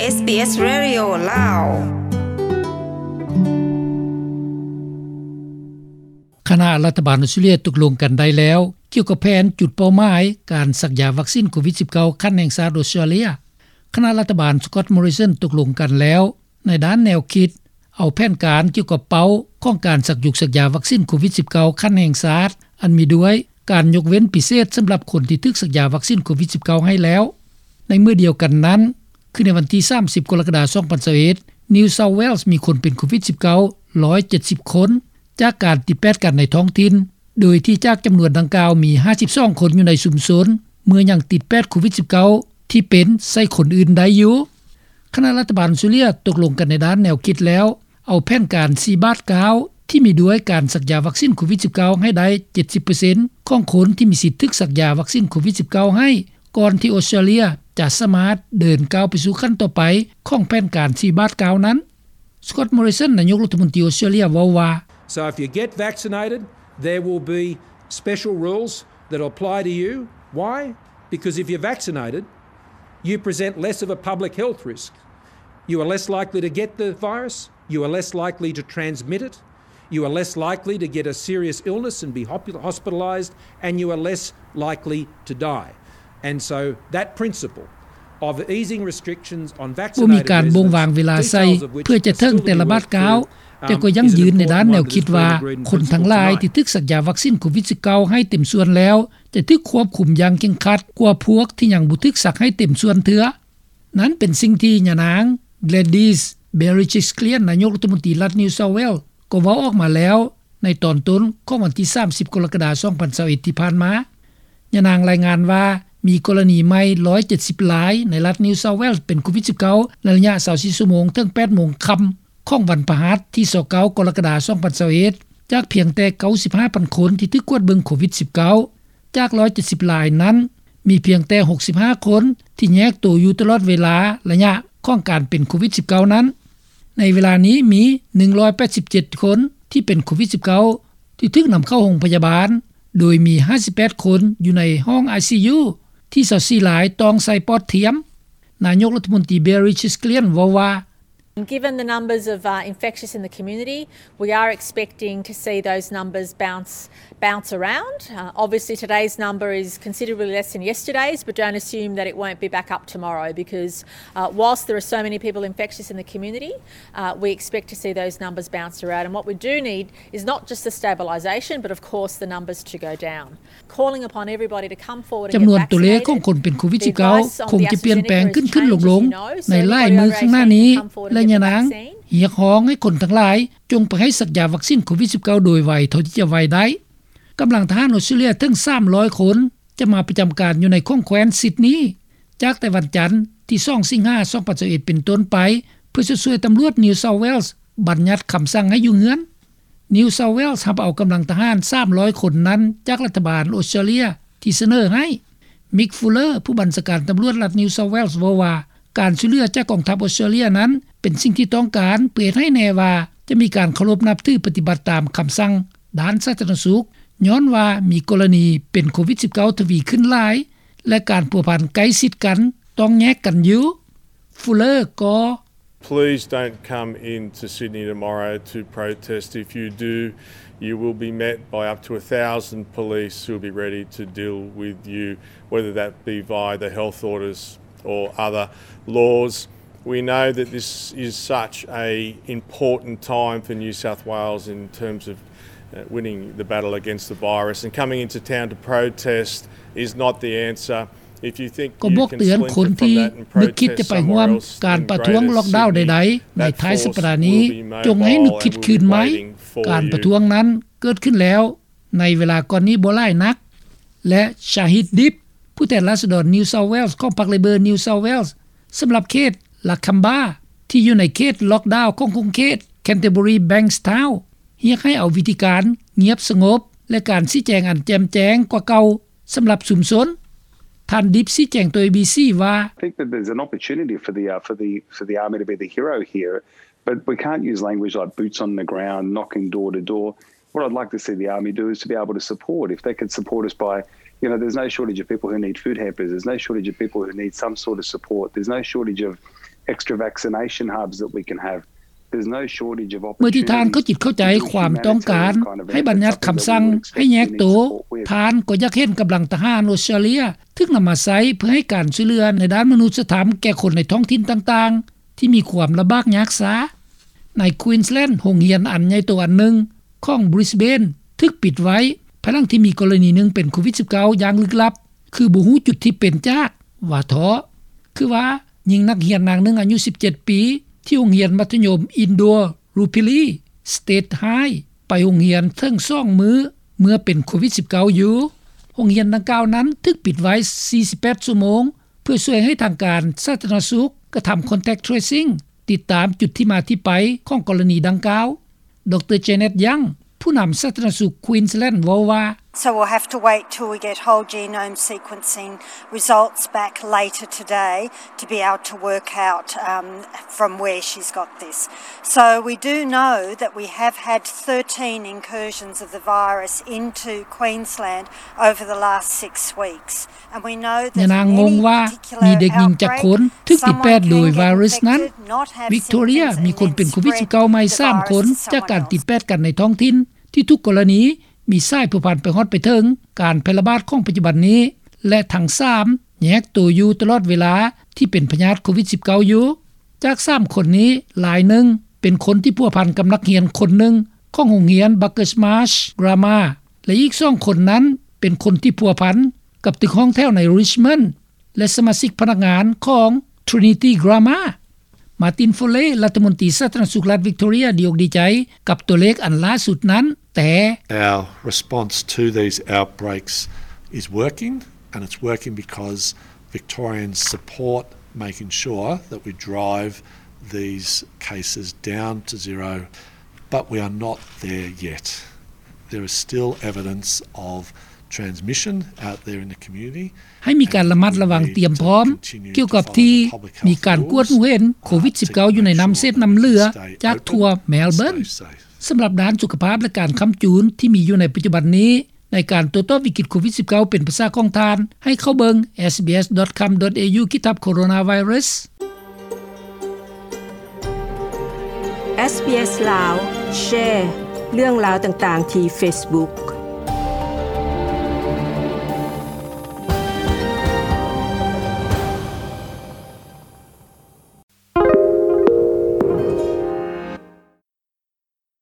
ເອສບີເອສ Radio ລາວ. ຄະນະລັດຖະບານອອສເຕຣເລັຽຕົກລົງກັນໄດ້ແລ້ວ ກ່ຽວກັບແຜນຈຸດເປົ້າໝາຍການສັກຢາວັກຊິນໂຄວິດ-19 ຂັ້ນແຫ່ງຊາດອອສເຕຣເລັຽ. ຄະນະລັດຖະບານ Scott Morrison ຕົກລົງກັນແລ້ວໃນດ້ານແນວຄິດ ເອົາແຜນການກ່ຽວກັບເປົ້າຂອງການສັກຍຸກສັກຢາວັກຊິນໂຄວິດ-19 ຂັ້ນແຫ່ງຊາດ ອັນມີດ້ວຍການຍົກເວັ້ນພິເສດສຳລັບຄົນທີ່ຖືກສັກຢາວັກຊິນໂຄວິດ-19 ໃຫ້ແລ້ວ. ໃນມື້ດຽວກັນນັ້ນ ຄືໃນວັນທີ ສາມສິບ ກໍລະກະດາ ສອງພັນຊາວເອັດ New South Wales ມີຄົນເປັນໂຄວິດ-19 ຮ້ອຍເຈັດສິບຄົນ ຈາກການຕິດແປດກັນໃນທ້ອງຖິ່ນ ໂດຍທີ່ຈາກຈຳນວນດັ່ງກ່າວມີ ຫ້າສິບສອງຄົນຢູ່ໃນຊຸມຊົນ ເມື່ອຍັງຕິດແປດໂຄວິດ-19 ທີ່ເປັນໃສ່ຄົນອື່ນໄດ້ຢູ່. ຄະນະລັດຖະບານອອສເຕຣເລັຽຕົກລົງກັນໃນດ້ານແນວຄິດແລ້ວ ເອົາແຜນການສີ່ບາດເກົ້າ ທີ່ມີດ້ວຍການສັກຢາວັກຊິນໂຄວິດ-19 ໃຫ້ໄດ້ ເຈັດສິບເປີເຊັນ ຂອງຄົນທີ່ມີສິດຖືກສັກຢາວັກຊິນໂຄວິດ-19 ໃຫ້ ກ່ອນທີ່ອອສເຕຣເລັຽຈະສາມາດເດີນກ້າວໄປສູ່ຂັ້ນຕໍ່ໄປຂອງແຜນການສີ່ບາດເກົ້ານັ້ນ. Scott Morrison ນາຍົກລັດຖະມົນຕີອອສເຕຣເລັຽເວົ້າວ່າ So if you get vaccinated, there will be special rules that apply to you. Why? Because if you're vaccinated, you present less of a public health risk. You are less likely to get the virus. You are less likely to transmit it. You are less likely to get a serious illness and be hospitalized. And you are less likely to die. And so that principle of easing restrictions on vaccinated residents, ບໍ່ມີການບົ່ງວາງເວລາໃສ່ ເພື່ອຈະເຖິງແຕ່ລະບາດກ້າວ ແຕ່ກໍຢັ້ງຢືນໃນດ້ານແນວຄິດວ່າ ຄົນທັງຫຼາຍທີ່ຖືກສັກຢາວັກຊິນໂຄວິດ-19 ໃຫ້ເຕັມສ່ວນແລ້ວ ຈະຖືກຄວບຄຸມຢ່າງເຄັ່ງຄັດກວ່າພວກທີ່ຍັງບໍ່ຖືກສັກໃຫ້ເຕັມສ່ວນເທື່ອ. ນັ້ນເປັນສິ່ງທີ່ຍານາງ Gladys Berejiklian ນາຍົກລັດຖະມົນຕີລັດ New South Wales ກໍເວົ້າອອກມາແລ້ວໃນຕອນຕົ້ນຂອງວັນທີ ສາມສິບ ກໍລະກະດາ ສອງພັນຊາວເອັດ ທີ່ຜ່ານມາ. ຍານາງລາຍງານວ່າ ມີກໍລະນີໃໝ່ ຮ້ອຍເຈັດສິບລາຍ ໃນລັດ New South Wales ເປັນໂຄວິດ-19 ໃນໄລຍະ ຊາວສີ່ ຊົ່ວໂມງ ເຖິງ ແປດໂມງຄ່ຳຂອງວັນພະຫັດທີ ຊາວເກົ້າ ກໍລະກະດາ ສອງພັນຊາວເອັດ ຈາກພຽງແຕ່ ເກົ້າສິບຫ້າພັນຄົນທີ່ຖືກກວດເບິ່ງໂຄວິດ-19. ຈາກ ຮ້ອຍເຈັດສິບລາຍນັ້ນ ມີພຽງແຕ່ ຫົກສິບຫ້າຄົນທີ່ແຍກໂຕຢູ່ຕະຫຼອດເວລາໄລຍະຂອງການເປັນໂຄວິດ-19 ນັ້ນ. ໃນເວລານີ້ມີ ໜຶ່ງຮ້ອຍແປດສິບເຈັດຄົນທີ່ເປັນໂຄວິດ-19 ທີ່ຖືກນຳເຂົ້າໂຮງພະຍາບານ ໂດຍມີ ຫ້າສິບແປດຄົນຢູ່ໃນຫ້ອງ ໄອຊີຢູ ທີ່ ຊາວສີ່ລາຍຕ້ອງໃສ່ປອດທຽມ. ນາຍົກລັດຖະມົນຕີ Berejiklian ເວົ້າວ່າ And given the numbers of, uh, infectious in the community, we are expecting to see those numbers bounce, bounce around. Uh, obviously, today's number is considerably less than yesterday's, but don't assume that it won't be back up tomorrow because, uh, whilst there are so many people infectious in the community, uh, we expect to see those numbers bounce around. And what we do need is not just the stabilisation, but of course the numbers to go down. ຈຳນວນຕົວເລກຂອງຄົນເປັນໂຄວິດ-19 ຄົງຈະປ່ຽນແປງຂຶ້ນໆລົງໆໃນຫຼາຍມື້ຂ້າງໜ້ານີ້ ແລະ ຍານາງຮຽກຮ້ອງໃຫ້ຄົນທັງຫຼາຍຈົ່ງໄປໃຫ້ສັກຢາວັກຊິນໂຄວິດ-19 ໂດຍໄວເທົ່າທີ່ຈະໄວໄດ້. ກຳລັງທະຫານອອສເຕຣເລັຽເຖິງ ສາມຮ້ອຍຄົນ ຈະມາປະຈຳການຢູ່ໃນຂົງແຄວ້ນຊິດນີ ຈາກແຕ່ວັນຈັນທີ ສອງ ສິງຫາ ສອງພັນຊາວເອັດ ເປັນຕົ້ນໄປ ເພື່ອຊ່ວຍຕຳຫຼວດ New South Wales ບັນຍັດຄຳສັ່ງໃຫ້ຢູ່ເຮືອນ. New South Wales ຮັບເອົາກຳລັງທະຫານ ສາມຮ້ອຍຄົນນັ້ນຈາກລັດຖະບານອອສເຕຣເລັຽທີ່ສະເໜີໃຫ້. Mick Fuller ຜູ້ບັນຊາການຕຳຫຼວດລັດ New South Wales ເວົ້າວ່າ ການຊ່ວຍເຫຼືອຈາກກອງທັບອອສເຕຣເລັຽນັ້ນ ເປັນສິ່ງທີ່ຕ້ອງການ ເພື່ອເຮັດໃຫ້ແນ່ວ່າຈະມີການເຄົາລົບນັບຖືປະຕິບັດຕາມຄຳສັ່ງດ້ານສາທາລະນະສຸກ ຍ້ອນວ່າມີກໍລະນີເປັນໂຄວິດ-19 ທະວີຂຶ້ນຫຼາຍ ແລະ ການພົວພັນໃກ້ຊິດກັນຕ້ອງແຍກກັນຢູ່. Fuller ກໍ Please don't come into Sydney tomorrow to protest. If you do, you will be met by up to a thousand police who will be ready to deal with you, whether that be via the health orders or other laws. We know that this is such a important time for New South Wales in terms of, uh, winning the battle against the virus, and coming into town to protest is not the answer. ກໍບອກເຕືອນຄົນທີ່ນຶກຄິດຈະໄປຮ່ວມການປະທ້ວງລັອກດາວໃດໆໃນທ້າຍສັບປະດານີ້ ຈົ່ງໃຫ້ນຶກຄິດຄືນໃໝ່. ການປະທ້ວງນັ້ນເກີດຂຶ້ນແລ້ວໃນເວລາກ່ອນນີ້ບໍ່ຫຼາຍນັກ. ແລະ Shahid Dib ຜູ້ແທນລາຊະດອນ New South Wales ຂອງພັກ Labor New South Wales ສຳລັບເຂດ Lakamba ທີ່ຢູ່ໃນເຂດລັອກດາວຂອງຂົງເຂດ Canterbury Bankstown ຮຽກໃຫ້ເອົາວິທີການງຽບສະຫງົບ ແລະ ການຊີ້ແຈງອັນແຈ່ມແຈ້ງກວ່າເກົ່າ ສຳລັບຊຸມຊົນ. ທ່ານ Dib ຊີ້ແຈງຕໍ່ ເອບີຊີ ວ່າ I think that there's an opportunity for the, uh, for the, for the army to be the hero here, but we can't use language like boots on the ground, knocking door to door. What I'd like to see the army do is to be able to support. If they could support us by, you know, there's no shortage of people who need food hampers. There's no shortage of people who need some sort of support. There's no shortage of extra vaccination hubs that we can have. There's no shortage of opportunities. ເມື່ອທີ່ທ່ານເຂົ້າຈິດເຂົ້າໃຈຄວາມຕ້ອງການໃຫ້ບັນຍັດຄຳສັ່ງໃຫ້ແຍກໂຕ, ທ່ານກໍຢາກເຫັນກຳລັງທະຫານອອສເຕຣເລັຽຖືກນຳມາໃຊ້ເພື່ອໃຫ້ການຊ່ວຍເຫຼືອໃນດ້ານມະນຸດສະທຳແກ່ຄົນໃນທ້ອງຖິ່ນຕ່າງໆ ທີ່ມີຄວາມລຳບາກຍາກຊ້າ. ໃນ Queensland ໂຮງຮຽນອັນໃຫຍ່ໂຕອັນໜຶ່ງຂອງ Brisbane ຖືກປິດໄວ້ ພາຍຫຼັງທີ່ມີກໍລະນີໜຶ່ງເປັນໂຄວິດ-19 ຢ່າງລຶກລັບ ຄືບໍ່ຮູ້ຈຸດທີ່ເປັນຈາກ ວ່າເທາະ. ຄືວ່າຍິງນັກຮຽນນາງໜຶ່ງອາຍຸສິບເຈັດປີ ທີ່ໂຮງຮຽນມັດທະຍົມ Indooroopilly State High ໄປໂຮງຮຽນເຖິງສອງມື້ເມື່ອເປັນໂຄວິດ-19 ຢູ່. ໂຮງຮຽນດັ່ງກ່າວນັ້ນຖືກປິດໄວ້ສີ່ສິບແປດຊົ່ວໂມງ ເພື່ອຊ່ວຍໃຫ້ທາງການສາທາລະນະສຸກກະທຳ contact tracing ຕິດຕາມຈຸດທີ່ມາທີ່ໄປຂອງກໍລະນີດັ່ງກ່າວ. ດຣ. Janet Young ຜູ້ນຳສາທາລະນະສຸກ Queensland ເວົ້າວ່າ So we'll have to wait till we get whole genome sequencing results back later today to be able to work out, um, from where she's got this. So we do know that we have had thirteen incursions of the virus into Queensland over the last six weeks. ຍານາງງົງວ່າມີເດັກຍິງຈັກຄົນຖືກຕິດແປດໂດຍໄວຣັສນັ້ນ. Victoria ມີຄົນເປັນໂຄວິດ-19 ໃໝ່ສາມຄົນຈາກການຕິດແປດກັນໃນທ້ອງຖິ່ນ ທີ່ທຸກກໍລະນີມີສາຍພົວພັນໄປຮອດໄປເຖິງການແຜ່ລະບາດຂອງປັດຈຸບັນນີ້ ແລະ ທັງສາມແຍກໂຕຢູ່ຕະຫຼອດເວລາທີ່ເປັນພະຍາດໂຄວິດ-19 ຢູ່. ຈາກສາມຄົນນີ້ ລາຍໜຶ່ງເປັນຄົນທີ່ພົວພັນກັບນັກຮຽນຄົນໜຶ່ງຂອງໂຮງຮຽນ Bucks Marsh Grammar ແລະ ອີກສອງຄົນນັ້ນເປັນຄົນທີ່ພົວພັນກັບຕຶກຫ້ອງແຖວໃນ Richmond ແລະ ສະມາຊິກພະນັກງານຂອງ Trinity Grammar. Martin Foley ລັດຖະມົນຕີສາທາລະນະສຸກລັດ Victoria ດີອົກດີໃຈກັບຕົວເລກອັນລ່າສຸດນັ້ນ, ແຕ່ Our response to these outbreaks is working, and it's working because Victorians support making sure that we drive these cases down to zero, but we are not there yet. There is still evidence of transmission out there in the community. ໃຫ້ມີການລະມັດລະວັງຕຽມພ້ອມກ່ຽວກັບທີ່ມີການກວດຮູ້ເຫັນໂຄວິດ-19 ຢູ່ໃນນ້ຳເສດນ້ຳເຫຼືອຈາກທົ່ວ Melbourne. ສຳລັບດ້ານສຸຂະພາບ ແລະ ການຄ້ຳຈູນທີ່ມີຢູ່ໃນປັດຈຸບັນນີ້ ໃນການໂຕ້ຕອບວິກິດໂຄວິດ-19 ເປັນພາສາຂອງທ່ານ ໃຫ້ເຂົ້າເບິ່ງ SBS.com.au/coronavirus. SBS ລາວ ແຊເລື່ອງລາວຕ່າງໆທີ່ Facebook.